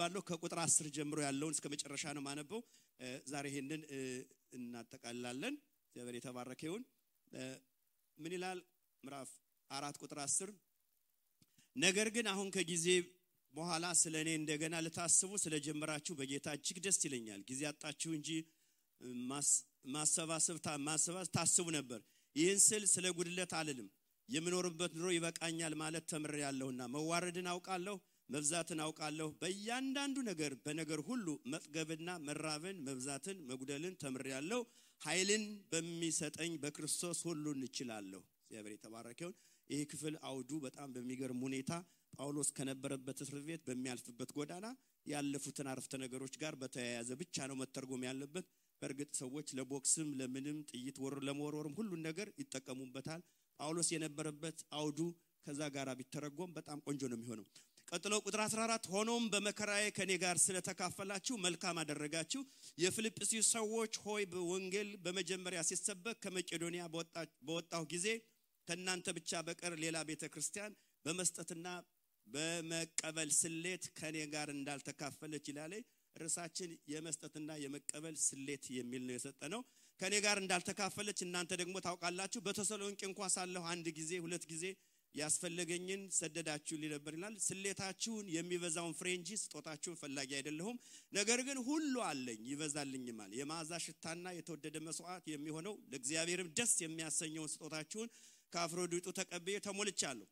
አነባለሁ ከቁጥር 10 ጀምሮ ያለውን እስከ መጨረሻ ነው ማነበው ዛሬ ይሄንን እናጠቃልላለን እግዚአብሔር የተባረከ ይሁን ምን ይላል ምዕራፍ 4 ቁጥር 10 ነገር ግን አሁን ከጊዜ በኋላ ስለኔ እንደገና ለታስቡ ስለጀመራችሁ በጌታ እጅግ ደስ ይለኛል ጊዜ አጣችሁ እንጂ ማሰባሰብ ታስቡ ነበር ይህን ስለ ጉድለት አልልም የምኖርበት ኑሮ ይበቃኛል ማለት ተምሬያለሁና መዋረድን አውቃለሁ መብዛትን አውቃለሁ በእያንዳንዱ ነገር በነገር ሁሉ መጥገብና መራብን መብዛትን መጉደልን ተምሬያለሁ ኃይልን በሚሰጠኝ በክርስቶስ ሁሉን እችላለሁ እግዚአብሔር የተባረከ ይሁን ይሄ ክፍል አውዱ በጣም በሚገርም ሁኔታ ጳውሎስ ከነበረበት እስር ቤት በሚያልፍበት ጎዳና ያለፉትን አረፍተ ነገሮች ጋር በተያያዘ ብቻ ነው መተርጎም ያለበት በርግጥ ሰዎች ለቦክስም ለምንም ጥይት ለመወርወርም ሁሉ ነገር ይተቀሙበታል ጳውሎስ የነበረበት አውዱ ከዛ ጋር ቢተረጎም በጣም ቆንጆ ነው የሚሆነው ቀጥሎ ቁጥር 14 ሆኖም በመከራዬ ከኔ ጋር ስለተካፈላችሁ መልካም አደረጋችሁ የፊልጵስዩስ ሰዎች ሆይ በወንጌል በመጀመሪያ ሲሰበክ ከመቄዶንያ በወጣሁ ጊዜ ከናንተ ብቻ በቀር ሌላ ቤተክርስቲያን በመስጠትና በመቀበል ስሌት ከኔ ጋር እንዳልተካፈለች ይላል ርሳችን የመስጠትና የመቀበል ስሌት የሚል ነው የሰጠነው ከኔ ጋር እንዳልተካፈለች እናንተ ደግሞ ታውቃላችሁ በተሰሎንቄ እንኳን ሳለሁ አንድ ጊዜ ሁለት ጊዜ ያስፈልገኝን ሰደዳችሁ ሊነበር ይላል ስሌታችሁን የሚበዛውን ፍሬንጂ ስጦታችሁን ፈላጊ አይደለሁም ነገር ግን ሁሉ አለኝ ይበዛልኝማል የማዛ ሽታና የተወደደ መስዋዕት የሚሆነው ለእግዚአብሔርም ደስ የሚያሰኘው ስጦታችሁን ከአፍሮዲጡ ተቀበየ ተሞልቻለሁ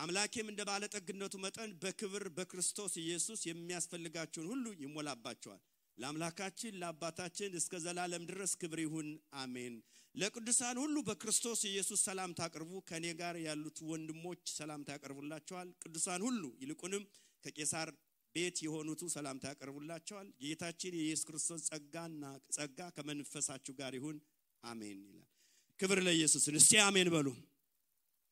አምላኬም እንደ ባለጠግነቱ መጠን በክብር በክርስቶስ ኢየሱስ የሚያስፈልጋችሁን ሁሉ ይሞላባችኋል ለአምላካችን ለአባታችን እስከ ዘላለም ድረስ ክብር ይሁን አሜን ለቅዱሳን ሁሉ በክርስቶስ ኢየሱስ ሰላም ታቀርቡ ከኔ ጋር ያሉት ወንድሞች ሰላም ታቀርቡላችኋል ቅዱሳን ሁሉ ይልቁንም ከቄሳር ቤት የሆኑት ሰላም ታቀርቡላችኋል ጌታችን ኢየሱስ ክርስቶስ ጸጋ ከመንፈሳችሁ ጋር ይሁን አሜን ይላል ክብር ለኢየሱስ እስቲ አሜን በሉ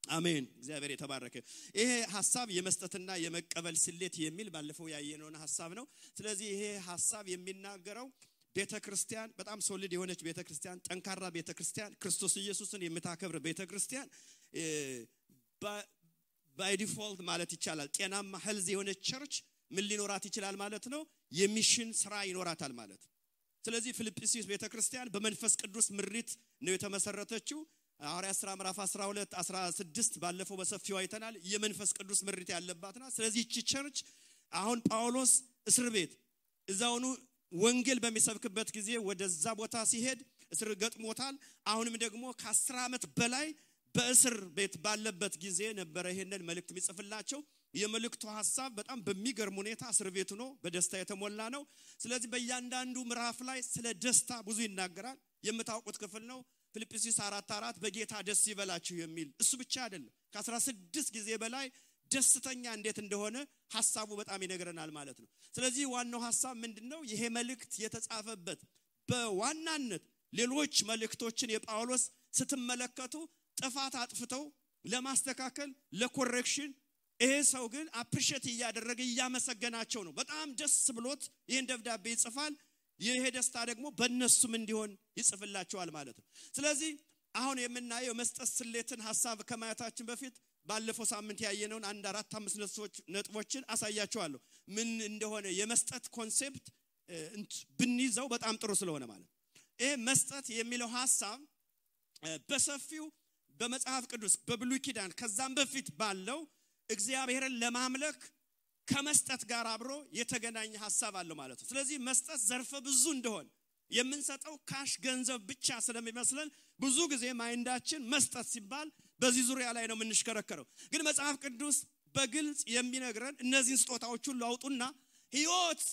አሜን እግዚአብሔር የተባረከ ይሄ ሐሳብ የመስጠትና የመቀበል ስሌት የሚል ባለፈው ያየነው ሐሳብ ነው ስለዚህ ይሄ ሐሳብ የሚናገረው ቤተክርስቲያን በጣም ሶሊድ የሆነች ቤተክርስቲያን ጠንካራ ቤተክርስቲያን ክርስቶስ ኢየሱስን የምታከብር ቤተክርስቲያን ባይ ዲፎልት ማለት ይቻላል ጤናማ ሄልዝ የሆነች ቸርች ምን ሊኖራት ይችላል ማለት ነው የሚሽን ስራ ይኖራታል ማለት ስለዚህ ፊልጵስዩስ ቤተክርስቲያን በመንፈስ ቅዱስ ምሪት ነው የተመሰረተችው ሐዋርያት ሥራ ምዕራፍ 12 16 ባለፈው በሰፊው አይተናል የመንፈስ ቅዱስ ምሪት ያለባትና ስለዚህ እቺ ቸርች አሁን ጳውሎስ እስር ቤት እዛውኑ ወንጌል በሚሰብክበት ጊዜ ወደዛ ቦታ ሲሄድ እስር ገጥሞታል አሁንም ደግሞ ከ10 ዓመት በላይ በእስር ቤት ባለበት ጊዜ ነበር ይሄንን መልእክት የሚጽፍላቸው የመልእክቱ ሐሳብ በጣም በሚገርም ሁኔታ እስር ቤቱ ነው በደስታ የተሞላ ነው ስለዚህ በእያንዳንዱ ምዕራፍ ላይ ስለ ደስታ ብዙ ይናገራል የምታውቁት ክፍል ነው ፊልጵስዩስ 4:4 በጌታ ደስ ይበላችሁ የሚል እሱ ብቻ አይደለም ከ16 ጊዜ በላይ ደስተኛ እንዴት እንደሆነ ሐሳቡ በጣም ይነግረናል ማለት ነው ስለዚህ ዋናው ሐሳብ ምንድነው ይሄ መልእክት የተጻፈበት በዋናነት ሌሎች መልእክቶችን የጳውሎስ ስትመለከቱ ጥፋት አጥፍተው ለማስተካከል ለኮሬክሽን ይሄ ሰው ግን አፕሪሺየት ያደረገ ያመሰገናቸው ነው በጣም ደስ ብሎት ይሄን ደብዳቤ ይጽፋል ይሄ ደስታ ደግሞ በእነሱም እንዲሆን ይጽፍላቸዋል ማለት ነው ስለዚህ አሁን የምናየው መስጠት ስሌትን ሐሳብ ከማየታችን በፊት ባለፈው ሳምንት ያየነውን 1-4-5 ነጥቦችን አሳያቸዋለሁ ምን እንደሆነ የመስጠት ኮንሴፕት ብንይዘው በጣም ጥሩ ስለሆነ ማለት ይሄ መስጠት የሚለው ሐሳብ በሰፊው በመጽሐፍ ቅዱስ በብሉይ ኪዳን ከዛም በፊት ባለው እግዚአብሔርን ለማምለክ ከመስጠት ጋር አብሮ የተገናኘ ሐሳብ አለው ማለት ነው ስለዚህ መስጠት ዘርፈ ብዙ እንደሆነ የምንሰጠው ካሽ ገንዘብ ብቻ ስለሚመስለን ብዙ ጊዜ ማይንዳችን መስጠት ሲባል በዚህ ዙሪያ ላይ ነው የምንሽከረከረው ግን መጽሐፍ ቅዱስ በግልጽ የሚነግረን እነዚህን ስጦታዎች ሁሉ አውጡና ሕይወት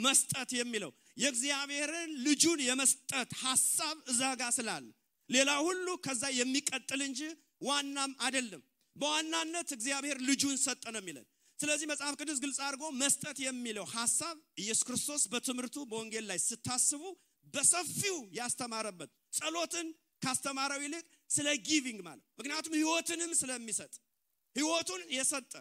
መስጠት የሚለው የእግዚአብሔርን ልጁን የመስጠት ሐሳብ እዛጋ ስላለ ሌላ ሁሉ ከዛ የሚቀጥል እንጂ ዋናም አይደለም በዋናነት እግዚአብሔር ልጁን ሰጠ ነው የሚለን ስለዚህ መጽሐፍ ቅዱስ ግልጽ አድርጎ መስጠት የሚለው ሐሳብ ኢየሱስ ክርስቶስ በትምህርቱ በወንጌል ላይ ስታስቡ በሰፊው ያስተማረበት ጸሎትን ካስተማረው ይልቅ ስለ ጊቪንግ ማለት ምክንያቱም ሕይወትንም ስለሚሰጥ ሕይወቱን የሰጠ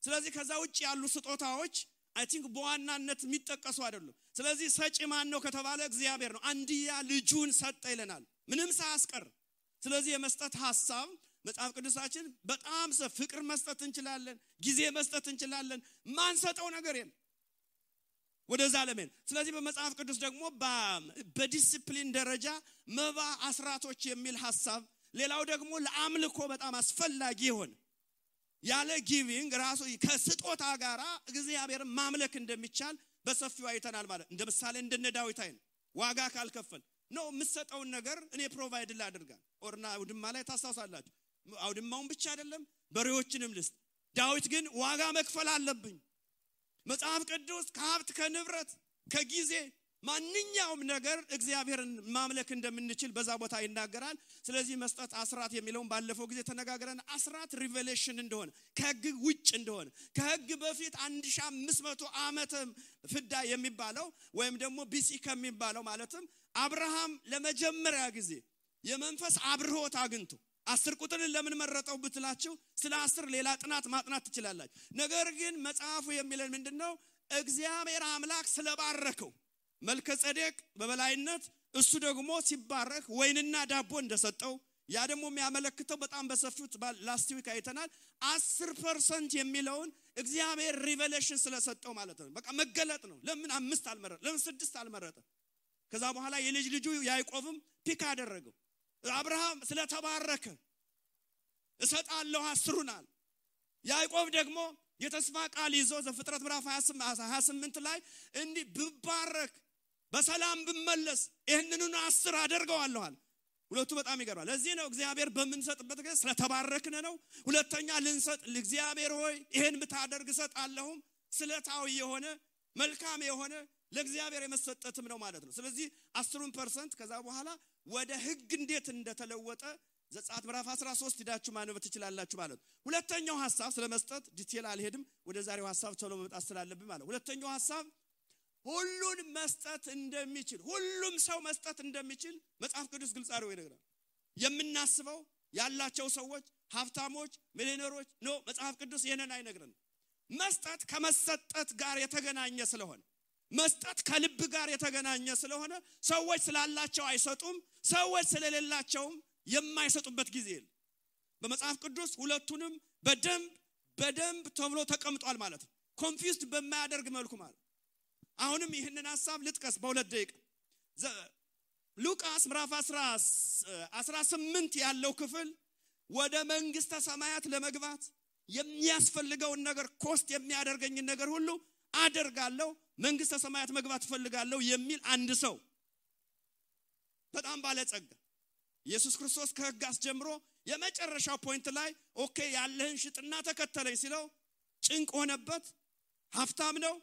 ስለዚህ ከዛ ውጪ ያሉ ስጦታዎች አይ ቲንክ በዋናነት የሚጠቀሱ አይደሉም ስለዚህ ሰጪ ማን ነው ከተባለ እግዚአብሔር ነው አንድያ ልጁን ሰጠ ይለናል ምንም ሳያስቀር ስለዚህ የመስጠት ሐሳብ መጽሐፍ ቅዱሳችን በጣም ፍቅር መስጠት እንችላለን ጊዜ መስጠት እንችላለን ማንሰጠው ነገር የለም ወደዛ ለምን ስለዚህ በመጽሐፍ ቅዱስ ደግሞ በዲሲፕሊን ደረጃ መባ አስራቶች የሚል ሐሳብ ሌላው ደግሞ ለአምልኮ በጣም አስፈላጊ ይሆን ያለ ጊቪንግ ራሱ ከስጦታ ጋራ እግዚአብሔርን ማምለክ እንደሚቻል በሰፊው አይተናል ማለት እንደ ምሳሌ እንደነ ዳዊት አይን ዋጋ ካልከፈል ነው የምሰጠውን ነገር እኔ ፕሮቫይድ ላድርጋል ኦርና አውድማ ላይ ታሳውሳላችሁ አውድማውን ብቻ አይደለም በሬዎችንም ልስጥ ዳዊት ግን ዋጋ መክፈል አለብኝ መጽሐፍ ቅዱስ ከሀብት ከንብረት ከጊዜ ማንኛውም ነገር እግዚአብሔርን ማምለክ እንደምንችል በዛ ቦታ ይናገራል ስለዚህ መስጠት አስራት የሚለውን ባለፈው ጊዜ ተነጋግረን አስራት ሪቨሌሽን እንደሆነ ከሕግ ውጭ እንደሆነ ከሕግ በፊት 1500 ዓመት ፍዳ የሚባለው ወይም ደግሞ ቢሲ ከሚባለው ማለትም አብርሃም ለመጀመሪያ ጊዜ የመንፈስ አብርሆት አግኝቶ 10 ቁጥርን ለምን መረጠው ብትላችሁ ስለ 10 ሌላ ጥናት ማጥናት ትችላላችሁ ነገር ግን መጽሐፉ የሚለን ምንድነው እግዚአብሔር አምላክ ስለባረከው መልከጼዴቅ በበላይነት እሱ ደግሞ ሲባረክ ወይንና ዳቦ እንደሰጠው ያ ደግሞ የሚያመለክተው በጣም በሰፊው ላስት ዊክ አይተናል 10% የሚለውን እግዚአብሔር ሪቨሌሽን ስለሰጠው ማለት ነው በቃ መገለጥ ነው ለምን 5 አልመረጠ ለምን 6 አልመረጠ ከዛ በኋላ የልጅ ልጁ ያዕቆብም ፒክ አደረገው አብርሃም ስለተባረከ እሰጣለሁ 10ሩናል ያዕቆብ ደግሞ የተስፋ ቃል ይዞ ዘፍጥረት ምዕራፍ 28 ላይ እንዲ ብባረክ በሰላም ብመለስ ይሄንኑን 10 አደርገዋለሁ አለ ሁለቱ በጣም ይገርማል ለዚህ ነው እግዚአብሔር በመንሰጥበት ጊዜ ስለተባረክነ ነው ሁለተኛ ልንሰጥ ለእግዚአብሔር ሆይ ይሄን ብታደርግ እሰጣለሁ ስለታው የሆነ መልካም የሆነ ለእግዚአብሔር የመሰጠትም ነው ማለት ነው ስለዚህ 10% ከዛ በኋላ ወደ ሕግ እንዴት እንደተለወጠ ዘጸአት ምዕራፍ 13 ሄዳችሁ ማንበብ ትችላላችሁ ማለት ነው ሁለተኛው ሐሳብ ስለመስጠት ዲቴል አልሄድም ወደ ዛሬው ሐሳብ ቶሎ መምጣት ስላለብኝ ማለት ሁለተኛው ሐሳብ ሁሉን መስጠት እንደሚችል ሁሉም ሰው መስጠት እንደሚችል መጽሐፍ ቅዱስ ግልጽ አድርጎ ይነግራል የምናስበው ያላቸው ሰዎች ሀብታሞች ሚሊዮነሮች ነው መጽሐፍ ቅዱስ ይሄንን አይነግረንም መስጠት ከመሰጠት ጋር የተገናኘ ስለሆነ መስጠት ከልብ ጋር የተገናኘ ስለሆነ ሰዎች ስላላቸው አይሰጡም ሰዎች ስለሌላቸው የማይሰጡበት ጊዜ የለም በመጽሐፍ ቅዱስ ሁለቱንም በደንብ ተብሎ ተቀምጧል ማለት ነው ኮንፊውዝድ በማያደርግ መልኩ ማለት አሁንም ይሄንን ሐሳብ ልጥቀስ በሁለት ደቂቃ ሉቃስ ምዕራፍ 18 ያለው ክፍል ወደ መንግስተ ሰማያት ለመግባት የሚያስፈልገውን ነገር ኮስት የሚያደርገኝ ነገር ሁሉ አደርጋለሁ መንግስተ ሰማያት መግባት ፈልጋለሁ የሚል አንድ ሰው በጣም ባለጸጋ ኢየሱስ ክርስቶስ ከሕግ አስጀምሮ የመጨረሻው ፖይንት ላይ ኦኬ ያለህን ሽጥና ተከተለኝ ሲለው ጭንቅ ሆነበት ሀብታም ነው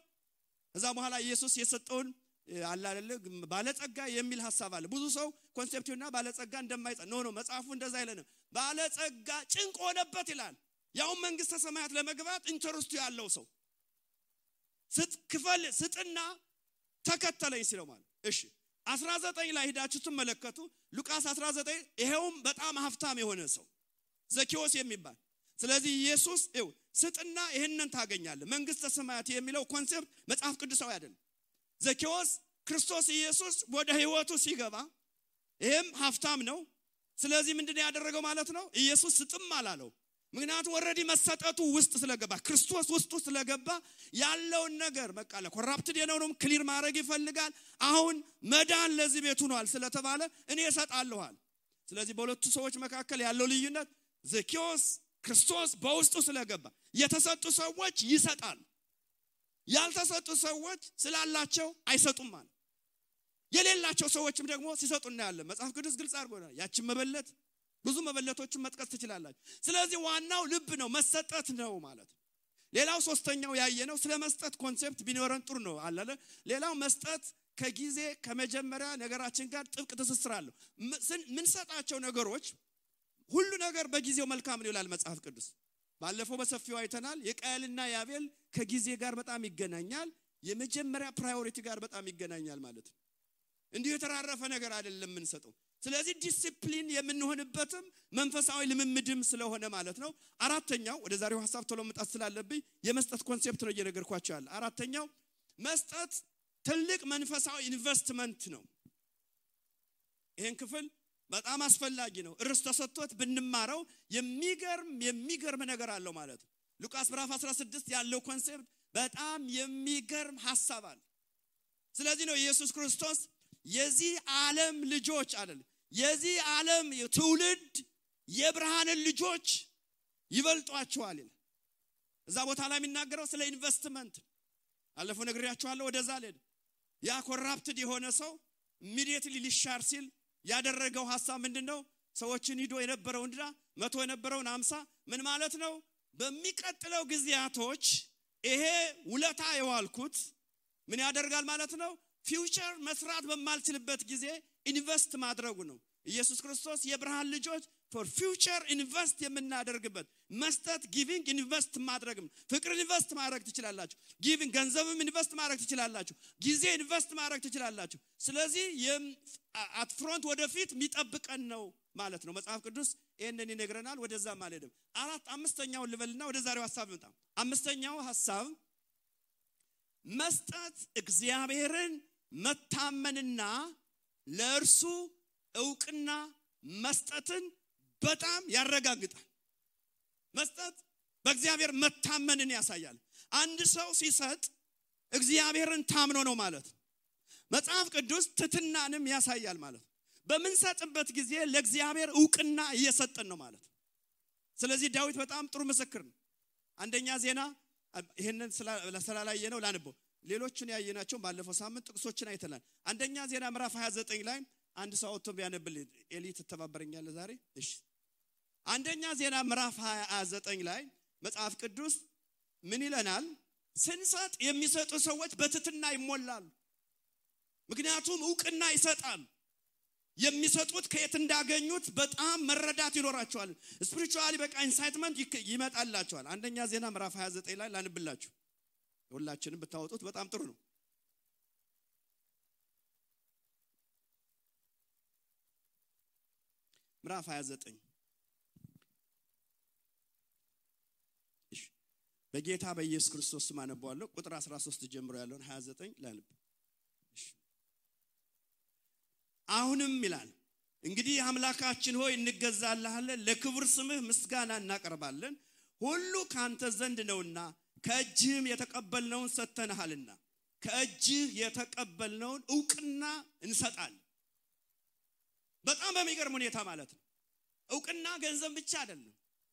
ከዛ በኋላ ኢየሱስ የሰጠውን አለ አይደል ባለጸጋ የሚል ሐሳብ አለ ብዙ ሰው ኮንሴፕቱና ባለጸጋ እንደማይጸ ነው መጽሐፉ እንደዛ አይለንም ባለጸጋ ጭንቅ ሆነበት ይላል ያው መንግስተ ሰማያት ለመግባት ኢንተረስቱ ያለው ሰው ስትክፈል ስጥና ተከተለኝ ሲለው ማለት እሺ 19 ላይ ሄዳችሁ ተመለከቱ ሉቃስ 19 ይሄውም በጣም ሀብታም የሆነ ሰው ዘኪዮስ የሚባል ስለዚህ ኢየሱስ ስጥና ይሄንን ታገኛለህ መንግስተ ሰማያት የሚለው ኮንሴፕት መጽሐፍ ቅዱሳዊ አይደለም ዘኪዮስ ክርስቶስ ኢየሱስ ወደ ህይወቱ ሲገባ ይሄም ሀብታም ነው ስለዚህ ምንድነው ያደረገው ማለት ነው ኢየሱስ ስጥም አላለው ምክንያቱም ኦሬዲ መሰጠቱ ውስጥ ስለገባ ክርስቶስ ውስጡ ስለገባ ያለው ነገር በቃ ለኮራፕትድ የነውንም ክሊር ማድረግ ይፈልጋል አሁን መዳን ለዚህ ቤት ሆኗል ስለተባለ እኔ እሰጣለሁአል ስለዚህ በሁለቱ ሰዎች መካከል ያለው ልዩነት ዘኪዮስ ክርስቶስ በውስጡ ስለገባ የተሰጡ ሰዎች ይሰጣል ያልተሰጡ ሰዎች ስላላቸው አይሰጡም ማለት የሌላቸው ሰዎችም ደግሞ ሲሰጡና ያለ መጽሐፍ ቅዱስ ግልጽ አድርጎናል ያቺን መበለት ብዙ መበለቶችን መጥቀስ ትችላላችሁ ስለዚህ ዋናው ልብ ነው መሰጠት ነው ማለት ሌላው ሶስተኛው ያየነው ስለመስጠት ኮንሴፕት ቢኖረን ጥሩ ነው አላለ ሌላው መስጠት ከጊዜ ከመጀመሪያ ነገራችን ጋር ጥብቅ ትስስር አለው ምን ሰጣቸው ነገሮች ሁሉ ነገር በጊዜው መልካም ነው ይላል መጽሐፍ ቅዱስ ባለፈው በሰፊው አይተናል የቃየልና ያቤል ከጊዜ ጋር በጣም ይገናኛል የመጀመሪያ ፕራዮሪቲ ጋር በጣም ይገናኛል ማለት እንዲሁ የተራረፈ ነገር አይደለም ምን ሰጠው ስለዚህ ዲሲፕሊን የምንሆንበትም መንፈሳዊ ልምምድም ስለሆነ ማለት ነው አራተኛው ወደ ዛሬው ሐሳብ ቶሎ መጣት ስላለብኝ የመስጠት ኮንሴፕት ነው እየነገርኳችሁ ያለ አራተኛው መስጠት ትልቅ መንፈሳዊ ኢንቨስትመንት ነው ይሄን ክፍል በጣም አስፈላጊ ነው እርስ ተሰጥቶት ብንማረው የሚገርም ነገር አለው ማለት ሉቃስ ምዕራፍ 16 ያለው ኮንሴፕት በጣም የሚገርም ሐሳብ አለ ስለዚህ ነው ኢየሱስ ክርስቶስ የዚህ ዓለም ልጆች አይደል የዚህ ዓለም ትውልድ የብርሃን ልጆች ይበልጧቸዋል ይላል። እዛ ቦታ ላይ የሚናገረው ስለ ኢንቨስትመንት አለፈው ነግሬያችኋለሁ። ወደዛ ለድ ያ ኮራፕትድ የሆነ ሰው ኢሚዲየትሊ ሊሻር ሲል ያደረገው ሐሳብ ምንድነው? ሰዎችን ሂዶ የነበረው እንድራ 100 የነበረውን 50 ምን ማለት ነው? በሚቀጥለው ጊዜያቶች ይሄ ውለታ የዋልኩት ምን ያደርጋል ማለት ነው? ፊውቸር መስራት በማልችልበት ጊዜ ኢንቨስት ማድረጉ ነው። ኢየሱስ ክርስቶስ የብርሃን ልጆች for future invest የምናደርግበት መስጠት giving invest ማድረግም ፍቅር ኢንቨስት ማድረግ ትችላላችሁ። giving ገንዘብም ኢንቨስት ማድረግ ትችላላችሁ። ጊዜ ኢንቨስት ማድረግ ትችላላችሁ። ስለዚህ at front ወደፊት የሚጠብቀን ነው ማለት ነው። መጽሐፍ ቅዱስ ይሄንን ይነግረናል። ወደዛ ማለትም አምስተኛው ልበልና ወደ ዛሬው ሐሳብ እንጣ። አምስተኛው ሐሳብ መስጠት እግዚአብሔርን መታመንና ለእርሱ ዕውቅና መስጠትን በጣም ያረጋግጣል። መስጠት በእግዚአብሔር መታመንን ያሳያል። አንድ ሰው ሲሰጥ እግዚአብሔርን ታምኖ ነው ማለት ነው። መጽሐፍ ቅዱስ ትትናንም ያሳያል ማለት ነው። በመንሰጥበት ጊዜ ለእግዚአብሔር ዕውቅና እየሰጠን ነው ማለት ነው። ስለዚህ ዳዊት በጣም ጥሩ ምስክር ነው። አንደኛ ዜና ይሄንን ስላላየ ነው ላንበው። ሌሎችን ያየናቸው ባለፈው ሳምንት ጥቅሶችን አይተናል። አንደኛ ዜና ምዕራፍ 29 ላይ አንድ ሰው አውጥቶ ቢያነብልኝ ኤሊ ተተባበረኛል ዛሬ። እሺ አንደኛ ዜና ምዕራፍ 29 ላይ መጽሐፍ ቅዱስ ምን ይለናል? ስንሰጥ የሚሰጡ ሰዎች በትትና ይሞላሉ። ምክንያቱም ዕውቅና ይሰጣል። የሚሰጡት ከየት እንዳገኙት በጣም መረዳት ይኖራቸዋል። ስፒሪቹዋሊ በቃ ኢንሳይትመንት ይመጣላቸዋል። አንደኛ ዜና ምዕራፍ 29 ላይ ላንብላችሁ። ሁላችንም ብታወጡት በጣም ጥሩ ነው። ምዕራፍ 29 እሺ በጌታ በኢየሱስ ክርስቶስ ስም አነባዋለሁ። ቁጥር 13 ጀምሮ ያለውን 29 ላንብ። እሺ አሁንም ይላል እንግዲህ አምላካችን ሆይ እንገዛልሃለን፣ ለክብር ስምህ ምስጋና እናቀርባለን። ሁሉ ካንተ ዘንድ ነውና ከእጅህም የተቀበልነውን ሰጥተናልና ከእጅህ የተቀበልነውን ዕውቅና እንሰጣለን። በጣም በሚገርም ሁኔታ ማለት ነው። ዕውቅና ገንዘብ ብቻ አይደለም።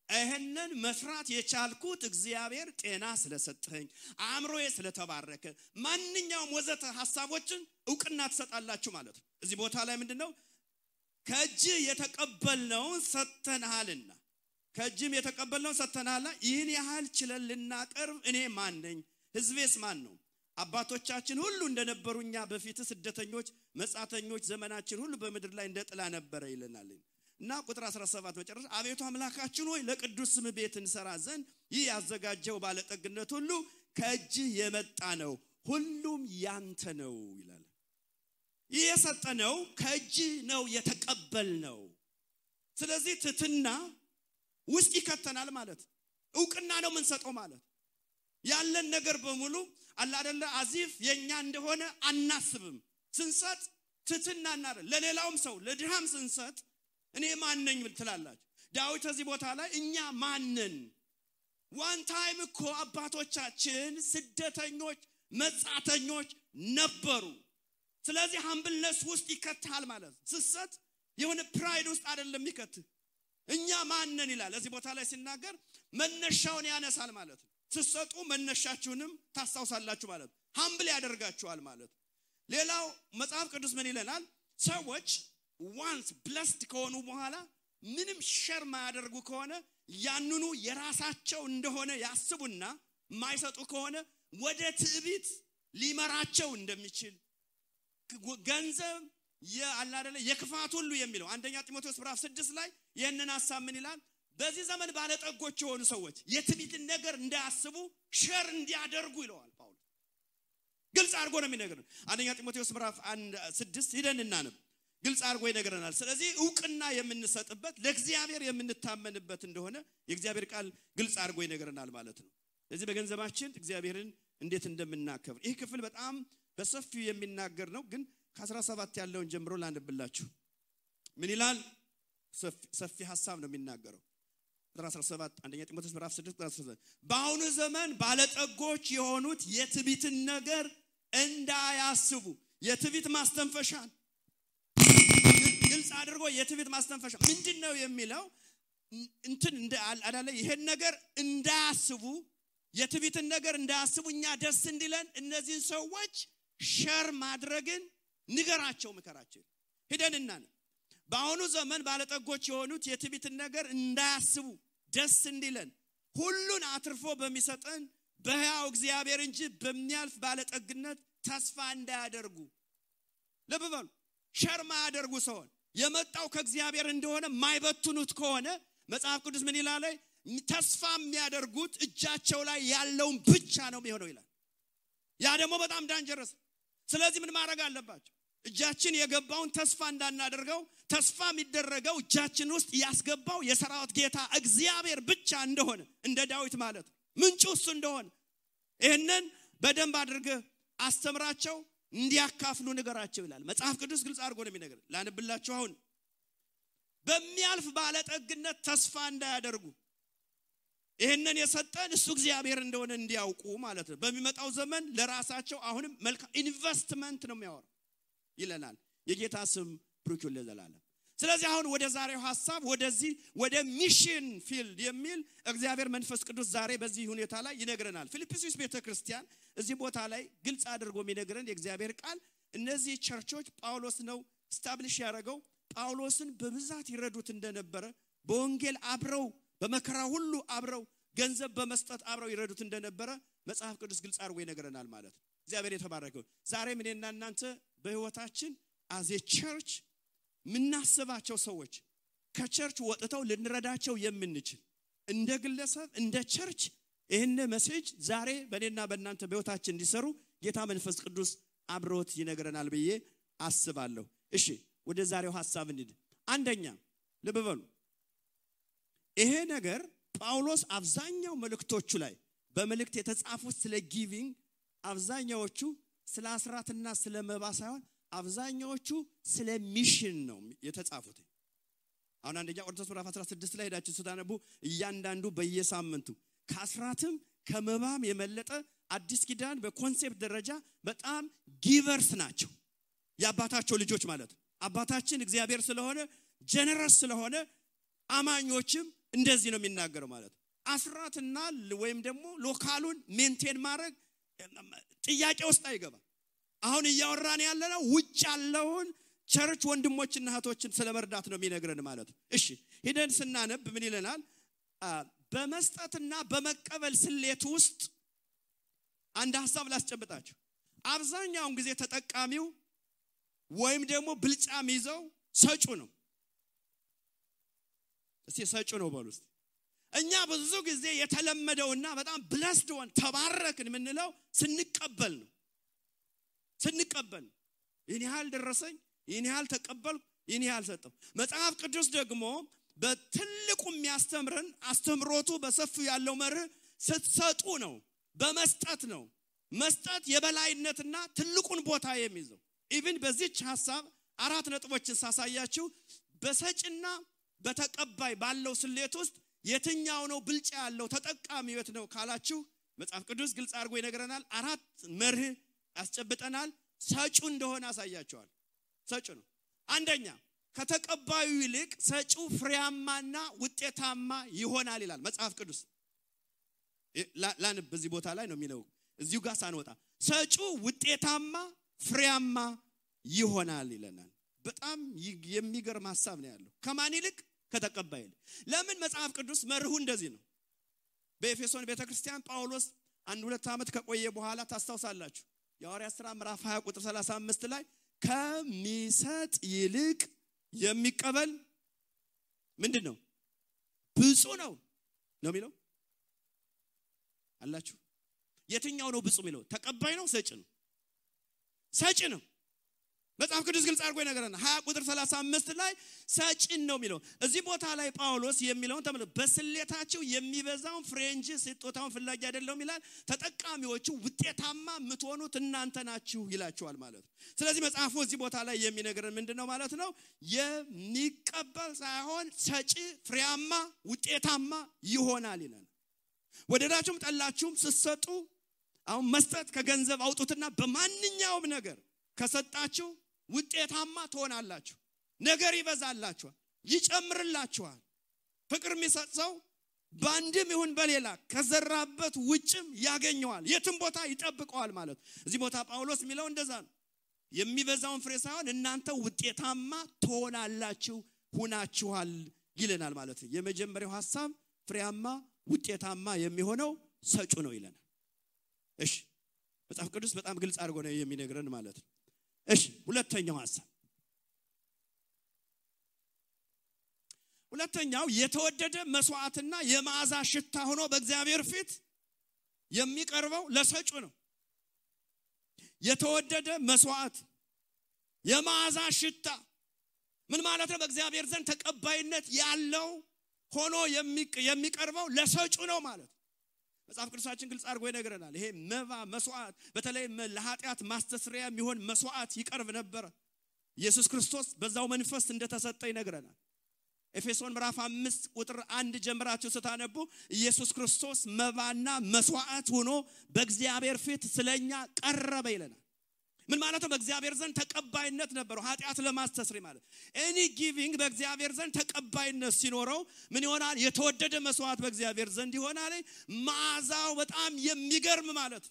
ይሄንን መስራት የቻልኩት እግዚአብሔር ጤና ስለሰጠኝ፣ አእምሮዬ ስለተባረከ፣ ማንኛውም ወዘተ ሐሳቦችን ዕውቅና ተሰጣላችሁ ማለት ነው። እዚህ ቦታ ላይ ምንድነው? ከእጅህ የተቀበልነውን ሰጥተናልና ከእጅም የተቀበልነውን ሰጥተናልና ይህን ያህል ችለን ልናቀርብ እኔ ማን ነኝ? ሕዝቤስ ማን ነው? አባቶቻችን ሁሉ እንደነበሩኛ በፊት ስደተኞች መጻተኞች ዘመናችን ሁሉ በመድር ላይ እንደጥላ ነበር ይለናል። እና ቁጥር 17 መጨረሻ አቤቱ አምላካችን ሆይ ለቅዱስ ስም ቤት እንሰራ ዘንድ ይህ ያዘጋጀው ባለጠግነት ሁሉ ከእጅህ የመጣ ነው፣ ሁሉም ያንተ ነው ይላል። ይህ የሰጠነው ከእጅህ ነው የተቀበልነው። ስለዚህ ትትና ውስጥ ይከተናል ማለት ዕውቅና ነው የምንሰጠው ማለት ያለን ነገር በሙሉ አላ አይደለ አዚፍ የኛ እንደሆነ አናስብም። ስንሰጥ ትትናና ለሌላውም ሰው ለድሃም ስንሰጥ እኔ ማን ነኝ ትላላችሁ። ዳዊት እዚህ ቦታ ላይ እኛ ማን ነን? ዋን ታይም እኮ አባቶቻችን ስደተኞች መጻተኞች ነበሩ። ስለዚህ ሃምብልነስ ውስጥ ይከታል ማለት ስሰጥ የሆነ ፕራይድ ውስጥ አይደለም ይከት። እኛ ማን ነን ይላል። እዚህ ቦታ ላይ ሲናገር መነሻውን ያነሳል ማለት ነው። ስሰጡ መነሻችሁንም ታስታውሳላችሁ ማለት ሃምብል ያደርጋችኋል ማለት። ሌላው መጽሐፍ ቅዱስ ምን ይለናል? ሰዎች once blessed ከሆኑ በኋላ ምንም ሸር ማያደርጉ ከሆነ ያንኑ የራሳቸው እንደሆነ ያስቡና ማይሰጡ ከሆነ ወደ ትዕቢት ሊመራቸው እንደሚችል ገንዘብ ያላደለ የክፋት ሁሉ የሚለው አንደኛ ጢሞቴዎስ ምዕራፍ 6 ላይ ይሄንን ሐሳብ ምን ይላል? በዚህ ዘመን ባለጠጎች የሆኑ ሰዎች የትዕቢትን ነገር እንዳያስቡ ሸር እንዲያደርጉ ይለዋል ጳውሎስ። ግልጽ አድርጎ ነው የሚነግረን። አንደኛ ጢሞቴዎስ ምዕራፍ 6 ሄደን እናነብ። ግልጽ አድርጎ ይነግረናል። ስለዚህ ዕውቅና የምንሰጥበት ለእግዚአብሔር የምንታመንበት እንደሆነ የእግዚአብሔር ቃል ግልጽ አድርጎ ይነግረናል ማለት ነው። ስለዚህ በገንዘባችን እግዚአብሔርን እንዴት እንደምናከብር ይህ ክፍል በጣም በሰፊው የሚናገር ነው። ግን ከ17 ያለውን ጀምሮ ላንብላችሁ። ምን ይላል? ሰፊ ሐሳብ ነው የሚናገረው። 17 አንደኛ ጢሞቴዎስ ምዕራፍ 6 17 በአሁኑ ዘመን ባለጠጎች የሆኑት የትዕቢትን ነገር እንዳያስቡ የትዕቢት ማስተንፈሻን ግልጽ አድርጎ የትዕቢት ማስተንፈሻ ምንድነው የሚለው እንትን አዳለ ይሄን ነገር እንዳያስቡ የትዕቢትን ነገር እንዳያስቡ እኛ ደስ እንዲለን እነዚህ ሰዎች ሸር ማድረግን ንገራቸው ምከራቸው ሄደንና በአሁኑ ዘመን ባለጠጎች የሆኑት የትዕቢትን ነገር እንዳያስቡ ደስ እንዲለን ሁሉን አትርፎ በሚሰጠን በሕያው እግዚአብሔር እንጂ በሚያልፍ ባለጠግነት ተስፋ እንዳያደርጉ ለበበሉ ሸር ማያደርጉ ሰው የመጣው ከእግዚአብሔር እንደሆነ ማይበቱኑት ከሆነ መጽሐፍ ቅዱስ ምን ይላል ተስፋ የሚያደርጉት እጃቸው ላይ ያለውን ብቻ ነው የሚሆነው ይላል ያ ደግሞ በጣም ዳንጀረስ ስለዚህ ምን ማድረግ አለባቸው እጃችን የገባውን ተስፋ እንዳናደርገው ተስፋ የሚደረገው እጃችን ውስጥ ያስገባው የሰራዊት ጌታ እግዚአብሔር ብቻ እንደሆነ እንደ ዳዊት ማለት ምንጩ እሱ እንደሆነ ይሄንን በደንብ አድርገህ አስተምራቸው እንዲያካፍሉ ንገራቸው ይላል መጽሐፍ ቅዱስ ግልጽ አድርጎ ነው የሚነገር ላንብላችሁ አሁን በሚያልፍ ባለጠግነት ተስፋ እንዳያደርጉ ይሄንን የሰጠን እሱ እግዚአብሔር እንደሆነ እንዲያውቁ ማለት ነው በሚመጣው ዘመን ለራሳቸው አሁንም መልካም ኢንቨስትመንት ነው የሚያወራው ይለናል የጌታ ስም ብሩክ ይሁን ለዘላለም ስለዚህ አሁን ወደ ዛሬው ሐሳብ ወደዚህ ወደ ሚሽን ፊልድ የሚል እግዚአብሔር መንፈስ ቅዱስ ዛሬ በዚህ ሁኔታ ላይ ይነግረናል ፊልጵስዩስ ቤተክርስቲያን እዚህ ቦታ ላይ ግልጽ አድርጎ የሚነግረን የእግዚአብሔር ቃል እነዚህ ቸርቾች ጳውሎስ ነው ስታብሊሽ ያደረገው ጳውሎስን በብዛት ይረዱት እንደነበረ በወንጌል አብረው በመከራ ሁሉ አብረው ገንዘብ በመስጠት አብረው ይረዱት እንደነበረ መጽሐፍ ቅዱስ ግልጽ አድርጎ ይነግረናል ማለት ነው እግዚአብሔር የተባረከው ዛሬ ምንና እናንተ በህይወታችን as a church ምናስባቸው ሰዎች ከቸርች ወጥተው ልንረዳቸው የምንችል እንደ ግለሰብ እንደ ቸርች ይሄን ሜሴጅ ዛሬ በእኔና በእናንተ በህይወታችን እንዲሰሩ ጌታ መንፈስ ቅዱስ አብሮት ይነግረናል ብዬ አስባለሁ እሺ ወደ ዛሬው ሐሳብ እንሂድ አንደኛ ለበበሉ ይሄ ነገር ጳውሎስ አብዛኛው መልእክቶቹ ላይ በመልእክት የተጻፉት ስለ ጊቪንግ አብዛኛዎቹ ስለ አስራትና ስለ መባ ሳይሆን አብዛኛዎቹ ስለ ሚሽን ነው የተጻፉት አሁን አንደኛ ቆሮንቶስ ምዕራፍ 16 ላይ ሄዳችሁ ስታነቡ እያንዳንዱ በየሳምንቱ ከአስራትም ከመባም የመለጠ አዲስ ኪዳን በኮንሴፕት ደረጃ በጣም ጊቨርስ ናቸው ያባታቸው ልጆች ማለት አባታችን እግዚአብሔር ስለሆነ ጀነረስ ስለሆነ አማኞችም እንደዚህ ነው የሚናገረው ማለት አስራትና ወይም ደግሞ ሎካሉን ሜንቴን ማድረግ ጥያቄ ውስጥ አይገባ አሁን እያወራን ያለነው ውጭ ያለውን ቸርች ወንድሞችና እህቶችን ስለመርዳት ነው የሚነግረን ማለት እሺ ሄደን ስናነብ ምን ይለናል በመስጠትና በመቀበል ስሌት ውስጥ አንድ ሐሳብ ላስጨብጣችሁ አብዛኛውን ጊዜ ተጠቃሚው ወይም ደግሞ ብልጫም ይዘው ሰጩ ነው እስቲ ሰጩ ነው በሉስ እኛ ብዙ ጊዜ የተለመደውና በጣም ብለስድ ሆን ተባረክን ምንለው ስንቀበል ነው ስንቀበል ይሄን ያህል ደረሰኝ ይሄን ያህል ተቀበል ይሄን ያህል ሰጠው መጽሐፍ ቅዱስ ደግሞ በትልቁ የሚያስተምረን አስተምሮቱ በሰፊው ያለው መርህ ስትሰጡ ነው በመስጠት ነው መስጠት የበላይነትና ትልቁን ቦታ የሚይዘው ኢቭን በዚህች ሐሳብ አራት ነጥቦችን ሳሳያችሁ በሰጭና በተቀባይ ባለው ስሌት ውስጥ የትኛው ነው ብልጫ ያለው ተጠቃሚው ነው ካላችሁ መጽሐፍ ቅዱስ ግልጽ አድርጎ ይነግረናል አራት መርህ ያስጨብጠናል ሰጩ እንደሆነ አሳያቸዋል ሰጩ ነው አንደኛ ከተቀባዩ ይልቅ ሰጩ ፍሬያማና ውጤታማ ይሆናል ይላል መጽሐፍ ቅዱስ ላንብ በዚህ ቦታ ላይ ነው የሚለው እዚሁ ጋር ሳንወጣ ሰጩ ውጤታማ ፍሬያማ ይሆናል ይለናል በጣም የሚገርም ሐሳብ ነው ያለው ከማን ይልቅ ከተቀባይ ለምን መጽሐፍ ቅዱስ መርሁ እንደዚህ ነው በኤፌሶን ቤተክርስቲያን ጳውሎስ 1-2 ዓመት ከቆየ በኋላ ታስታውሳላችሁ የሐዋርያት ሥራ ምዕራፍ 20 ቁጥር 35 ላይ ከሚሰጥ ይልቅ የሚቀበል ምንድነው ብፁዕ ነው የሚለው አላችሁ የትኛው ነው ብፁዕ የሚለው ተቀባይ ነው ሰጭ ነው ሰጭ ነው መጽሐፍ ቅዱስ ግልጽ አድርጎ ይነግረናል 20 ቁጥር 35 ላይ ሰጭን ነው የሚለው እዚህ ቦታ ላይ ጳውሎስ የሚለውን ተመልከቱ በስሌታቸው የሚበዛውን ፍሬ እንጂ ስጦታውን ፍላጊ አይደለም ይላል ተጠቃሚዎቹ ውጤታማ የምትሆኑት እናንተ ናችሁ ይላቸዋል ማለት ነው ስለዚህ መጽሐፉ እዚህ ቦታ ላይ የሚነግረን ምንድነው ማለት ነው የሚቀበል ሳይሆን ሰጪ ፍሬያማ ውጤታማ ይሆናል ይላል ወደዳችሁም ጠላችሁም ስትሰጡ አሁን መስጠት ከገንዘብ አውጡትና በማንኛውም ነገር ከሰጣችሁ ውጤታማ ትሆናላችሁ ነገር ይበዛላችኋል ይጨምርላችኋል ፍቅር የሚሰጥ ሰው ባንድም ይሁን በሌላ ከዘራበት ውጭም ያገኘዋል የትም ቦታ ይጠብቀዋል ማለት እዚህ ቦታ ጳውሎስ የሚለው እንደዛ ነው የሚበዛውን ፍሬ ሳይሆን እናንተ ውጤታማ ትሆናላችሁ ሁናችኋል ይለናል ማለት ነው የመጀመሪያው ሐሳብ ፍሬያማ ውጤታማ የሚሆነው ሰጩ ነው ይለናል እሺ መጽሐፍ ቅዱስ በጣም ግልጽ አድርጎ ነው የሚነግረን ማለት ነው እሺ ሁለተኛው ሐሳብ ሁለተኛው የተወደደ መስዋዕትና የመዓዛ ሽታ ሆኖ በእግዚአብሔር ፊት የሚቀርበው ለሰጩ ነው የተወደደ መስዋዕት የመዓዛ ሽታ ምን ማለት ነው በእግዚአብሔር ዘንድ ተቀባይነት ያለው ሆኖ የሚቀርበው ለሰጩ ነው ማለት መጽሐፍ ቅዱሳችን ግልጽ አድርጎ ይነግረናል ይሄ መባ መስዋዕት በተለይ ለኃጢአት ማስተስሪያ የሚሆን መስዋዕት ይቀርብ ነበር ኢየሱስ ክርስቶስ በዛው መንፈስ እንደተሰጠ ይነግረናል ኤፌሶን ምዕራፍ 5 ቁጥር 1 ጀምራችሁ ስታነቡ ኢየሱስ ክርስቶስ መባና መስዋዕት ሆኖ በእግዚአብሔር ፊት ስለኛ ቀረበ ይለናል ምን ማለት ነው በእግዚአብሔር ዘንድ ተቀባይነት ነበረው ኃጢአት ለማስተስሪያ ማለት ኤኒ ጊቪንግ በእግዚአብሔር ዘንድ ተቀባይነት ሲኖረው ምን ይሆናል የተወደደ መስዋዕት በእግዚአብሔር ዘንድ ይሆናል መዓዛው በጣም የሚገርም ማለት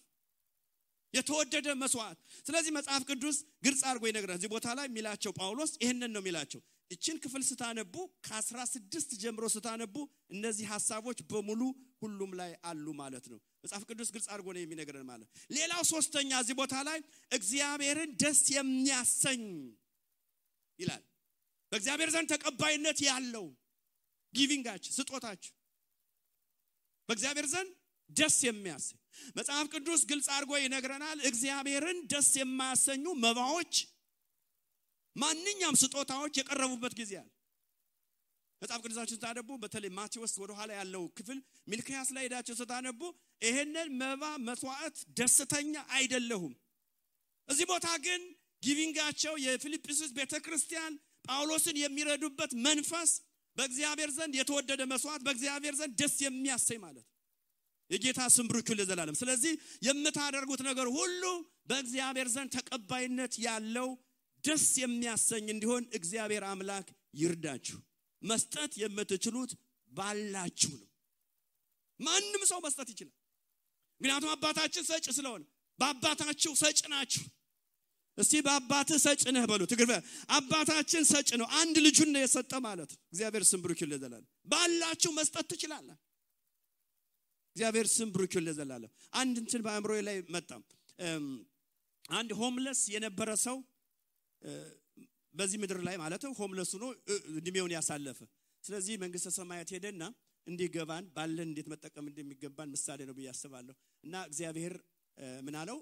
የተወደደ መስዋዕት ስለዚህ መጽሐፍ ቅዱስ ግልጽ አድርጎ ይነግራል እዚህ ቦታ ላይ የሚላቸው ጳውሎስ ይሄንን ነው የሚላቸው እቺን ክፍል ስታነቡ ከ16 ጀምሮ ስታነቡ እነዚህ ሐሳቦች በሙሉ ሁሉም ላይ አሉ ማለት ነው መጽሐፍ ቅዱስ ግልጽ አድርጎ ነው የሚነግረን ማለት ሌላው ሶስተኛ እዚህ ቦታ ላይ እግዚአብሔርን ደስ የሚያሰኝ ይላል በእግዚአብሔር ዘንድ ተቀባይነት ያለው ጊቪንጋችሁ ስጦታችሁ በእግዚአብሔር ዘንድ ደስ የሚያሰኝ መጽሐፍ ቅዱስ ግልጽ አድርጎ ይነግረናል እግዚአብሔርን ደስ የማያሰኙ መባዎች ማንኛውም ስጦታዎች የቀረቡበት ጊዜ አለ መጽሐፍ ቅዱሳችን ታነቡ በተለይ ማቴዎስ ወደ ኋላ ያለው ክፍል ሚልክያስ ላይ ሄዳችሁ ስታነቡ ይሄንን መባ መስዋዕት ደስተኛ አይደለሁም እዚህ ቦታ ግን ጊቪንጋቸው የፊልጵስዩስ ቤተክርስቲያን ጳውሎስን የሚረዱበት መንፈስ በእግዚአብሔር ዘንድ የተወደደ መስዋዕት በእግዚአብሔር ዘንድ ደስ የሚያሰኝ ማለት የጌታ ስም ብሩክ ይሁን ለዘላለም ስለዚህ የምታደርጉት ነገር ሁሉ በእግዚአብሔር ዘንድ ተቀባይነት ያለው ደስ የሚያሰኝ እንዲሆን እግዚአብሔር አምላክ ይርዳችሁ መስጠት የምትችሉት ባላችሁ ነው ማንንም ሰው መስጠት ይችላል ምክንያቱም አባታችን ሰጭ ስለሆነ በአባታችሁ ሰጭ ናችሁ እስቲ በአባትህ ሰጭ ነህ በሉ ትግርበ አባታችን ሰጭ ነው አንድ ልጁን ነው የሰጠ ማለት እግዚአብሔር ስም ብሩክ ይሁን ለዘላለም ባላችሁ መስጠት ትችላላችሁ እግዚአብሔር ስም ብሩክ ይሁን ለዘላለም አንድ እንትን በአእምሮዬ ላይ መጣ አንድ ሆምለስ የነበረ ሰው በዚህ ምድር ላይ ማለት ነው ሆምለስ ሆኖ እድሜውን ያሳለፈ ስለዚህ መንግስተ ሰማያት ሄደና እንዲገባን ባለን እንዴት መጠቀም እንደሚገባን ምሳሌ ነው በያስባለሁ እና እግዚአብሔር ምን አለው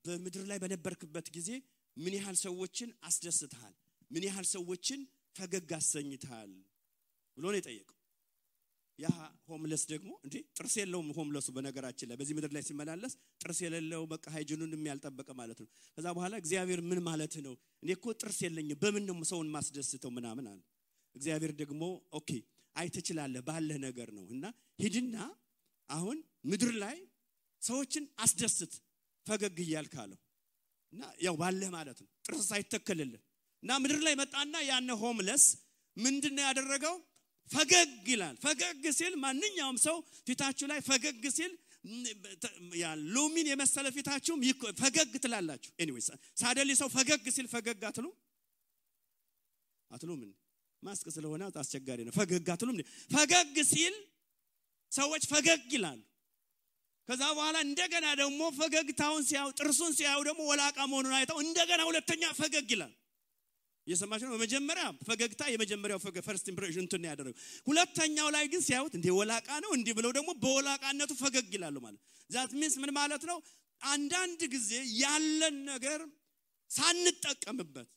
በምድር ላይ በነበርክበት ጊዜ ምን ያህል ሰዎችን አስደስተሃል ምን ያህል ሰዎችን ፈገግ አሰኝተሃል ብሎ ነው የጠየቀው ያ ሆምለስ ደግሞ እንዴ ጥርስ የለውም ሆምለሱ በነገራችን ላይ በዚህ ምድር ላይ ሲመላለስ ጥርስ የሌለው በቃ ሃይጂኑን የሚያልጠበቀ ማለት ነው ከዛ በኋላ እግዚአብሔር ምን ማለት ነው እኔ እኮ ጥርስ የለኝም በምን ነው ሰውን ማስደስተው ምናምን አለ እግዚአብሔር ደግሞ ኦኬ አይተችላለህ ባለ ነገር ነው እና ሂድና አሁን ምድር ላይ ሰዎችን አስደስት ፈገግ ይያልካለው እና ያው ባለ ማለት ነው ጥርስ ሳይተከለልህ እና ምድር ላይ መጣና ያነ ሆምለስ ምንድነው ያደረገው ፈገግ ይላል ፈገግ ሲል ማንኛውም ሰው ፊታችሁ ላይ ፈገግ ሲል ያ ሎሚን የመሰለ ፊታችሁም ፈገግ ትላላችሁ ኤኒዌይስ ሳደሊ ሰው ፈገግ ሲል ፈገግ አትሉም ማስክ ስለሆነ አስቸጋሪ ነው ፈገግ አትሉም ፈገግ ሲል ሰዎች ፈገግ ይላሉ ከዛ በኋላ እንደገና ደግሞ ፈገግታውን ሲያው ጥርሱን ሲያው ደግሞ ወላቃ መሆኑን አይተው እንደገና ሁለተኛ ፈገግ ይላል የሰማችሁ ነው በመጀመሪያ ፈገግታ የመጀመሪያው ፈርስት ኢምፕሬሽን እንትን ያደረገው ሁለተኛው ላይ ግን ሲያዩት እንደ ወላቃ ነው እንዴ ብለው ደግሞ በወላቃነቱ ፈገግ ይላሉ ማለት ዛት ሚንስ ምን ማለት ነው አንዳንድ ጊዜ ያለን ነገር ሳንጠቀምበት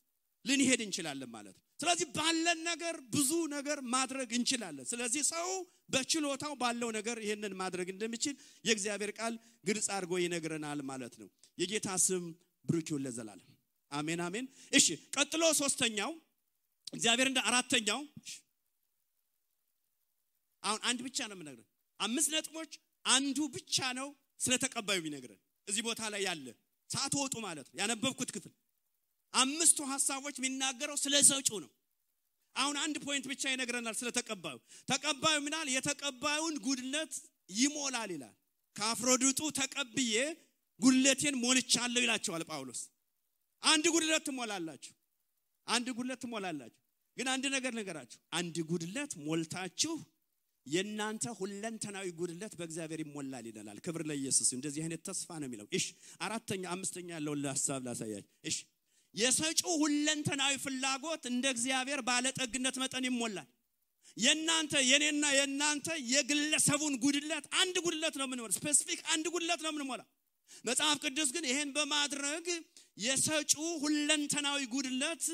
ልንሄድ እንችላለን ማለት ስለዚህ ባለን ነገር ብዙ ነገር ማድረግ እንችላለን ስለዚህ ሰው በችሎታው ባለው ነገር ይሄንን ማድረግ እንደሚችል የእግዚአብሔር ቃል ግልጽ አድርጎ ይነግረናል ማለት ነው የጌታ ስም ብሩክ ይሁን ለዘላለም አሜን አሜን እሺ ቀጥሎ ሶስተኛው እግዚአብሔር እንደ አራተኛው አሁን አንድ ብቻ ነው የምነግርህ 5 ነጥቦች አንዱ ብቻ ነው ስለተቀባዩ ይነግረን እዚህ ቦታ ላይ ያለ ሳትወጡ ማለት ነው ያነበብኩት ክፍል 5 ሐሳቦች የሚናገረው ስለ ሰጪው ነው። አሁን አንድ ፖይንት ብቻ ይነግረናል ስለ ተቀባዩ። ተቀባዩ ምናል የተቀባዩን ጉድለት ይሞላል ይላል። ከአፍሮዲጡ ተቀብዬ ጉድለቴን ሞልቻለሁ ይላቸዋል ጳውሎስ። አንድ ጉድለት ትሞላላችሁ፣ አንድ ጉድለት ትሞላላችሁ። ግን አንድ ነገር ነገራችሁ፣ አንድ ጉድለት ሞልታችሁ የናንተ ሁለንተናዊ ጉድለት በእግዚአብሔር ይሞላል ይላል። ክብር ለኢየሱስ። እንደዚህ አይነት ተስፋ ነው የሚለው። እሺ አራተኛ አምስተኛ ያለው ለሐሳብ ላሳያችሁ። እሺ የሰጪው ሁለንተናዊ ፍላጎት እንደ እግዚአብሔር ባለጠግነት መጠን ይሞላል። የናንተ የኔና የናንተ የግለሰቡን ጉድለት አንድ ጉድለት ነው ምንሞላ፣ ስፔሲፊክ አንድ ጉድለት ነው ምንሞላ። መጽሐፍ ቅዱስ ግን ይሄን በማድረግ የሰጪው ሁለንተናዊ ጉድለት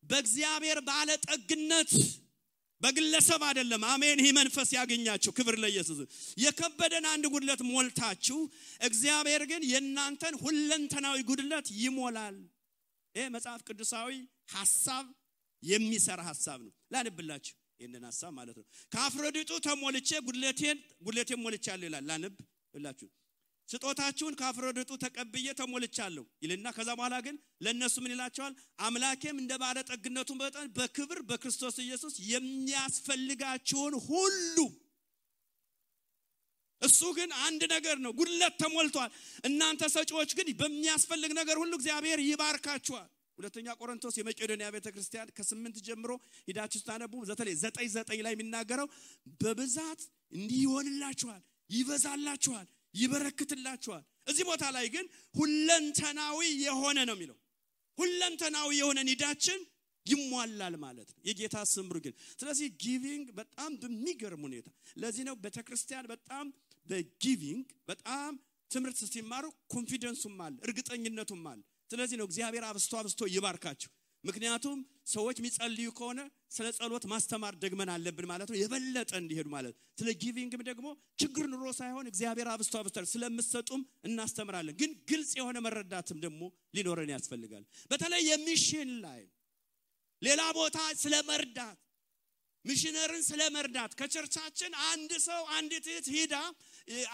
በእግዚአብሔር ባለጠግነት በግለሰብ አይደለም። አሜን። ይሄ መንፈስ ያገኛችሁ። ክብር ለኢየሱስ። የከበደን አንድ ጉድለት ሞልታችሁ እግዚአብሔር ግን የናንተን ሁለንተናዊ ጉድለት ይሞላል። ይሄ መጽሐፍ ቅዱሳዊ ሐሳብ የሚሰራ ሐሳብ ነው። ላንብላችሁ ይሄንን ሐሳብ ማለት ነው። ከአፍሮዲጡ ተሞልቼ ጉድለቴን ሞልቻለሁ ይላል። ላንብላችሁ። ስጦታችሁን ከአፍሮዲጡ ተቀብዬ ተሞልቻለሁ ይልና ከዛ በኋላ ግን ለነሱ ምን ይላቸዋል? አምላኬም እንደ ባለጠግነቱ መጠን በክብር በክርስቶስ ኢየሱስ የሚያስፈልጋችሁን ሁሉ። እሱ ግን አንድ ነገር ነው፣ ጉድለት ተሞልቷል። እናንተ ሰጪዎች ግን በሚያስፈልግ ነገር ሁሉ እግዚአብሔር ይባርካችኋል። ሁለተኛ ቆሮንቶስ የመቄዶንያ ቤተክርስቲያን ከ8 ጀምሮ ሄዳችሁ ታነቡ። በተለይ 9:9 ላይ የሚናገረው በብዛት እንዲሆንላችኋል፣ ይበዛላችኋል፣ ይበረክትላችኋል። እዚህ ቦታ ላይ ግን ሁለንተናዊ የሆነ ነው የሚለው። ሁለንተናዊ የሆነ ኒዳችን ይሟላል ማለት ነው። የጌታ ስም ግን ስለዚህ ጊቪንግ በጣም በሚገርም ሁኔታ ለዚህ ነው ቤተክርስቲያን በጣም በጊቪንግ በጣም ትምርት ሲማሩ ኮንፊደንሱም አለ፣ እርግጠኝነቱም አለ። ስለዚህ ነው እግዚአብሔር አብስቶ ይባርካችሁ። ምክንያቱም ሰዎች የሚጸልዩ ከሆነ ስለ ጸሎት ማስተማር ደግመን አለብን ማለት ነው፣ የበለጠ እንዲሄዱ ማለት። ስለ ጊቪንግም ደግሞ ችግር ኑሮ ሳይሆን እግዚአብሔር አብስቶ ስለምትሰጡም እናስተምራለን። ግን ግልጽ የሆነ መረዳትም ደግሞ ሊኖረን ያስፈልጋል። በተለይ የሚሽን ላይ ሌላ ቦታ ስለመርዳት ሚሽነርን ስለመርዳት ከቸርቻችን አንድ ሰው አንዲት እህት ሄዳ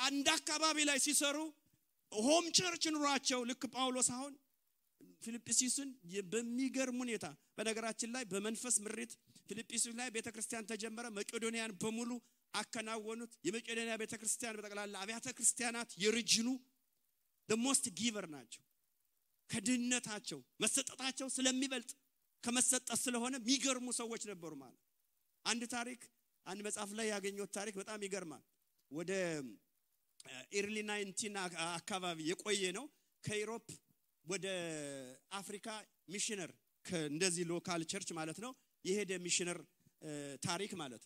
አንድ አካባቢ ላይ ሲሰሩ ሆም ቸርች ኑሯቸው ልክ ጳውሎስ አሁን ፊልጵስዩስን በሚገርም ሁኔታ በነገራችን ላይ በመንፈስ ምሪት ፊልጵስዩስ ላይ ቤተክርስቲያን ተጀመረ። መቄዶንያን በሙሉ አከናወኑት። የመቄዶንያ ቤተክርስቲያን በጠቅላላ አብያተ ክርስቲያናት የሪጅኑ the most giver ናቸው። ከድህነታቸው መሰጠታቸው ስለሚበልጥ ከመሰጠት ስለሆነ የሚገርሙ ሰዎች ነበሩ ማለት። አንድ ታሪክ አንድ መጽሐፍ ላይ ያገኘሁት ታሪክ በጣም ይገርማል። ወደ ኤርሊ 19 አካባቢ የቆየ ነው። ከዩሮፕ ወደ አፍሪካ ሚሽነር እንደዚህ ሎካል ቸርች ማለት ነው የሄደ ሚሽነር ታሪክ ማለት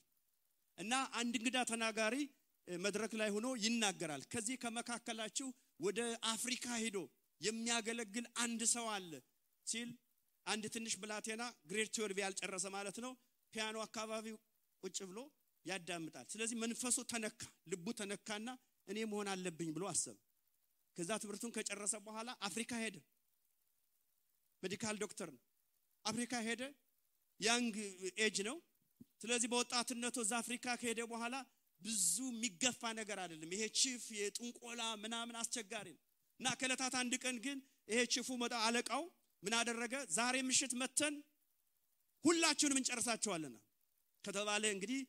እና አንድ እንግዳ ተናጋሪ መድረክ ላይ ሆኖ ይናገራል። ከዚህ ከመካከላችሁ ወደ አፍሪካ ሄዶ የሚያገለግል አንድ ሰው አለ ሲል አንድ ትንሽ ብላቴና ግሬድ 12 ያልጨረሰ ማለት ነው ፒያኖ አካባቢ ቁጭ ብሎ ያዳምጣል። ስለዚህ መንፈሱ ተነካ፣ ልቡ ተነካና እኔ መሆን አለብኝ ብሎ አሰበ። ከዛ ትምህርቱን ከጨረሰ በኋላ አፍሪካ ሄደ። ሜዲካል ዶክተር ነው። አፍሪካ ሄደ። ያንግ ኤጅ ነው። ስለዚህ በወጣትነቱ እዛ አፍሪካ ከሄደ በኋላ ብዙ የሚገፋ ነገር አይደለም። ይሄ ቺፍ የጥንቆላ ምናምን አስቸጋሪ ነው እና ከለታት አንድ ቀን ግን ይሄ ቺፉ መጣ አለቃው ምን አደረገ? ዛሬ ምሽት መተን ሁላችሁንም እንጨርሳቸዋልና ከተባለ እንግዲህ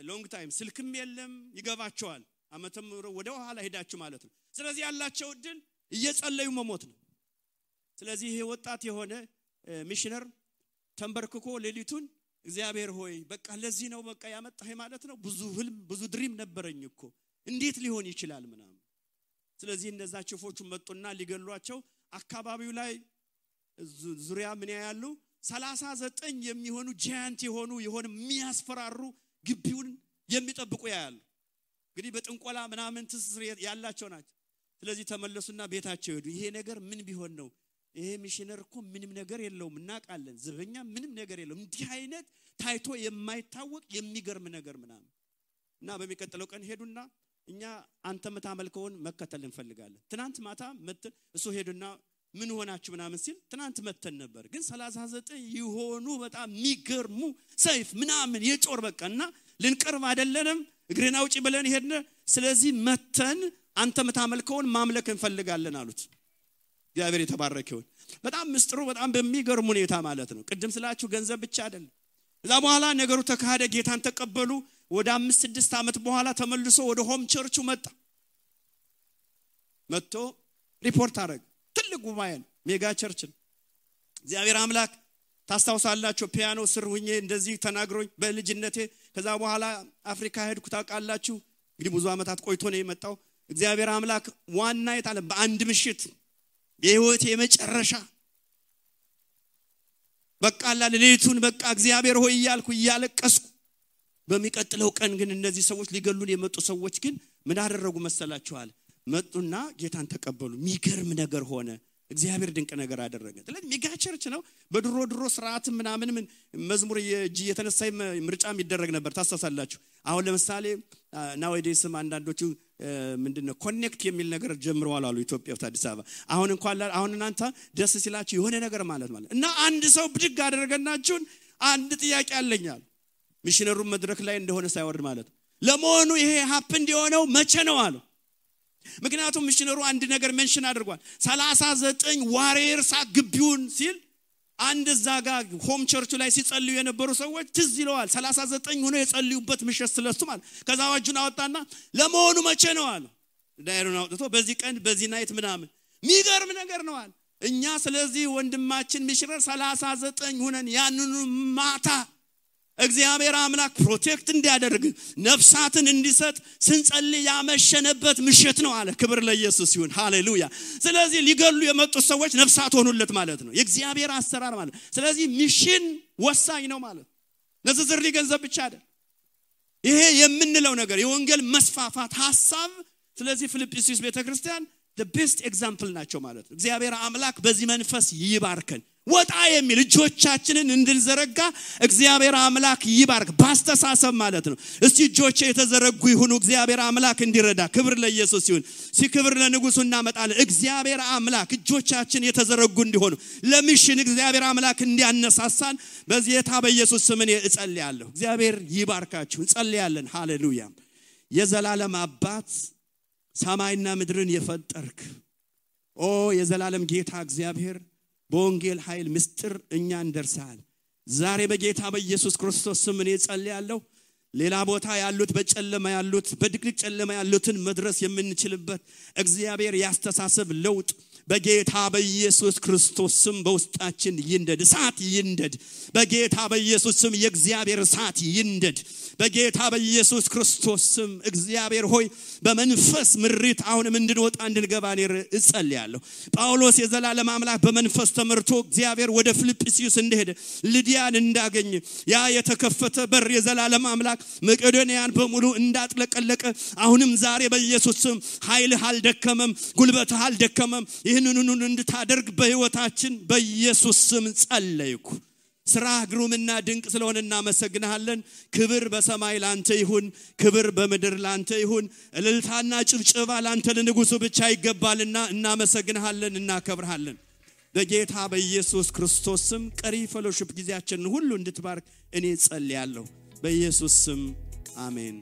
ሎንግ ታይም ስልክም የለም ይገባቸዋል። አመተም ወደ ኋላ ሄዳችሁ ማለት ነው። ስለዚህ ያላቸው እድል እየጸለዩ መሞት ነው። ስለዚህ ይሄ ወጣት የሆነ ሚሽነር ተንበርክኮ ሌሊቱን እግዚአብሔር ሆይ በቃ ለዚህ ነው በቃ ያመጣህ ማለት ነው። ብዙ ህልም ብዙ ድሪም ነበረኝ እኮ እንዴት ሊሆን ይችላል ምናምን። ስለዚህ እነዛ ቺፎቹ መጡና ሊገሏቸው አካባቢው ላይ ዙሪያ ምን ያያሉ? 39 የሚሆኑ ጃያንት የሆኑ የሚያስፈራሩ ግቢውን የሚጠብቁ ያያሉ። እንግዲህ በጥንቆላ ምናምን ትስስር ያላቸው ናቸው። ስለዚህ ተመለሱና ቤታቸው ሄዱ። ይሄ ነገር ምን ቢሆን ነው? ይሄ ሚሽነር እኮ ምንም ነገር የለውም እናቃለን፣ ዘበኛ ምንም ነገር የለውም፣ እንዲህ አይነት ታይቶ የማይታወቅ የሚገርም ነገር ምናምን እና በሚቀጥለው ቀን ሄዱና እኛ አንተ መታመልከውን መከተል እንፈልጋለን። ትናንት ማታ መተን እሱ ሄዱና ምን ሆናችሁ ምናምን ሲል ትናንት መተን ነበር ግን 39 ይሆኑ በጣም የሚገርሙ ሰይፍ ምናምን የጮር በቃና ልንቀርብ አይደለንም እግሬና ውጪ ብለን ሄድነ። ስለዚህ መተን አንተ መታመልከውን ማምለክ እንፈልጋለን አሉት እግዚአብሔር የተባረከ ይሁን በጣም ምስጥሩ በጣም በሚገርም ሁኔታ ማለት ነው ቅድም ስላችሁ ገንዘብ ብቻ አይደለም እዛ በኋላ ነገሩ ተካሄደ ጌታን ተቀበሉ ወደ 5-6 ዓመት በኋላ ተመልሶ ወደ ሆም ቸርቹ መጥቶ ሪፖርት አረግ ትልቅ ጉባኤ ሜጋ ቸርች እግዚአብሔር አምላክ ታስታውሳላችሁ ፒያኖ ስር ሆኜ እንደዚህ ተናግሮኝ በልጅነቴ ከዛ በኋላ አፍሪካ ሄድኩ ታውቃላችሁ እንግዲህ ብዙ አመታት ቆይቶ ነው የመጣው እግዚአብሔር አምላክ ዋና የታለ በአንድ ምሽት የህይወት የመጨረሻ በቃ ለሌሊቱን በቃ እግዚአብሔር ሆይ ይያልኩ ይያለቀስኩ በሚቀጥለው ቀን ግን እነዚህ ሰዎች ሊገሉን የመጡ ሰዎች ግን ምን አደረጉ መሰላችኋል መጡና ጌታን ተቀበሉ ሚገርም ነገር ሆነ እግዚአብሔር ድንቅ ነገር አደረገ ስለዚህ ሜጋ ቸርች ነው በድሮ ስርዓት ምናምን መዝሙር የተነሳይ ምርጫም ይደረግ ነበር ታሳሳላችሁ አሁን ለምሳሌ ናውዴስም አንዳንዶቹ ምንድነው ኮኔክት የሚል ነገር ጀምረዋል አሉ ኢትዮጵያ አዲስ አበባ አሁን እንኳን አሁን እናንተ ደስ ሲላችሁ የሆነ ነገር ማለት እና አንድ ሰው ብድግ አደረገናችሁን አንድ ጥያቄ አለኛል ሚሽነሩ መድረክ ላይ እንደሆነ ሳይወርድ ማለት ለሞኑ ይሄ ሀፕን እንዲሆነው መቼ ነው አሉ ምክንያቱም ሚሽነሩ አንድ ነገር ሜንሽን አድርጓል 39 ዋሪየርስ ግቢውን ሲል አንድ ዛጋ ሆም ቸርቹ ላይ ሲጸልዩ የነበሩ ሰዎች ትዝ ይለዋል 39 ሆኖ የጸልዩበት ምሽት ስለሱ ማለት ከዛ ዋጁን አወጣና ለሞኑ መቼ ነው አሉ ዳይሩን አውጥቶ በዚህ ቀን በዚህ ናይት ምናምን ሚገርም ነገር ነው አለ እኛ ስለዚህ ወንድማችን ሚሽነር 39 ሆነን ያንኑ ማታ እግዚአብሔር አምላክ ፕሮቴክት እንዲያደርግ ነፍሳትን እንዲሰጥ ስንጸልይ ያመሸነበት ምሽት ነው አለ ክብር ለኢየሱስ ይሁን ሃሌሉያ ስለዚህ ሊገሉ የመጡ ሰዎች ነፍሳት ሆኑለት ማለት ነው የእግዚአብሔር አሰራር ማለት ስለዚህ ሚሽን ወሳኝ ነው ማለት ለዝርዝር ሊገንዘብ ብቻ አይደል ይሄ የምንለው ነገር የወንጌል መስፋፋት ሐሳብ ስለዚህ ፊልጵስዩስ ቤተክርስቲያን the best example ናቸው ማለት ነው እግዚአብሔር አምላክ በዚህ መንፈስ ይባርከን ወጣ የሚል እጆቻችንን እንድንዘረጋ እግዚአብሔር አምላክ ይባርክ ባስተሳሰብ ማለት ነው እስቲ እጆቼ የተዘረጉ ይሁኑ እግዚአብሔር አምላክ እንዲረዳ ክብር ለኢየሱስ ይሁን ሲክብር ለንጉሱ እናመጣለን እግዚአብሔር አምላክ እጆቻችን የተዘረጉ እንዲሆኑ ለሚሽን እግዚአብሔር አምላክ እንዲያነሳሳን በዚህ የታ በኢየሱስ ስም እጸልያለሁ እግዚአብሔር ይባርካችሁ እንጸልያለን ሃሌሉያ የዘላለም አባት ሰማይና ምድርን የፈጠርክ የዘላለም ጌታ እግዚአብሔር በወንጌል ኃይል ምስጥር እኛን ደርሰሃል ዛሬ በጌታ በኢየሱስ ክርስቶስ ስም እጸልያለሁ ሌላ ቦታ ያሉት በጨለማ ያሉት በድቅድቅ ጨለማ ያሉትን መድረስ የምንችልበት እግዚአብሔር ያስተሳሰብ ለውጥ በጌታ በኢየሱስ ክርስቶስ ስም በውስጣችን ይንደድ እሳት ይንደድ በጌታ በኢየሱስ ስም የእግዚአብሔር እሳት ይንደድ በጌታ በኢየሱስ ክርስቶስ ስም እግዚአብሔር ሆይ በመንፈስ ምሪት አሁንም እንድንወጣ እንድንገባ እጸልያለሁ ጳውሎስ የዘላለም አምላክ በመንፈስ ተመርቶ እግዚአብሔር ወደ ፊልጵስዩስ እንደሄደ ልዲያን እንዳገኘ ያ የተከፈተ በር የዘላለም አምላክ መቄዶንያን በሙሉ እንዳጥለቀለቀ አሁንም ዛሬ በኢየሱስ ስም ኃይልህ አልደከመም ጉልበትህ አልደከመም ይህንኑን እንድታደርግ በህይወታችን በኢየሱስ ስም ጸለይኩ ስራ ግሩምና ድንቅ ስለሆነ እናመሰግናለን ክብር በሰማይ ላንተ ይሁን ክብር በምድር ላንተ ይሁን እልልታና ጭብጨባ ላንተ ለንጉሱ ብቻ ይገባልና እናመሰግናለን እናከብርሃለን በጌታ በኢየሱስ ክርስቶስ ስም ቀሪ ፌሎሺፕ ጊዜያችንን ሁሉ እንድትባርክ እኔ ጸልያለሁ በኢየሱስ ስም አሜን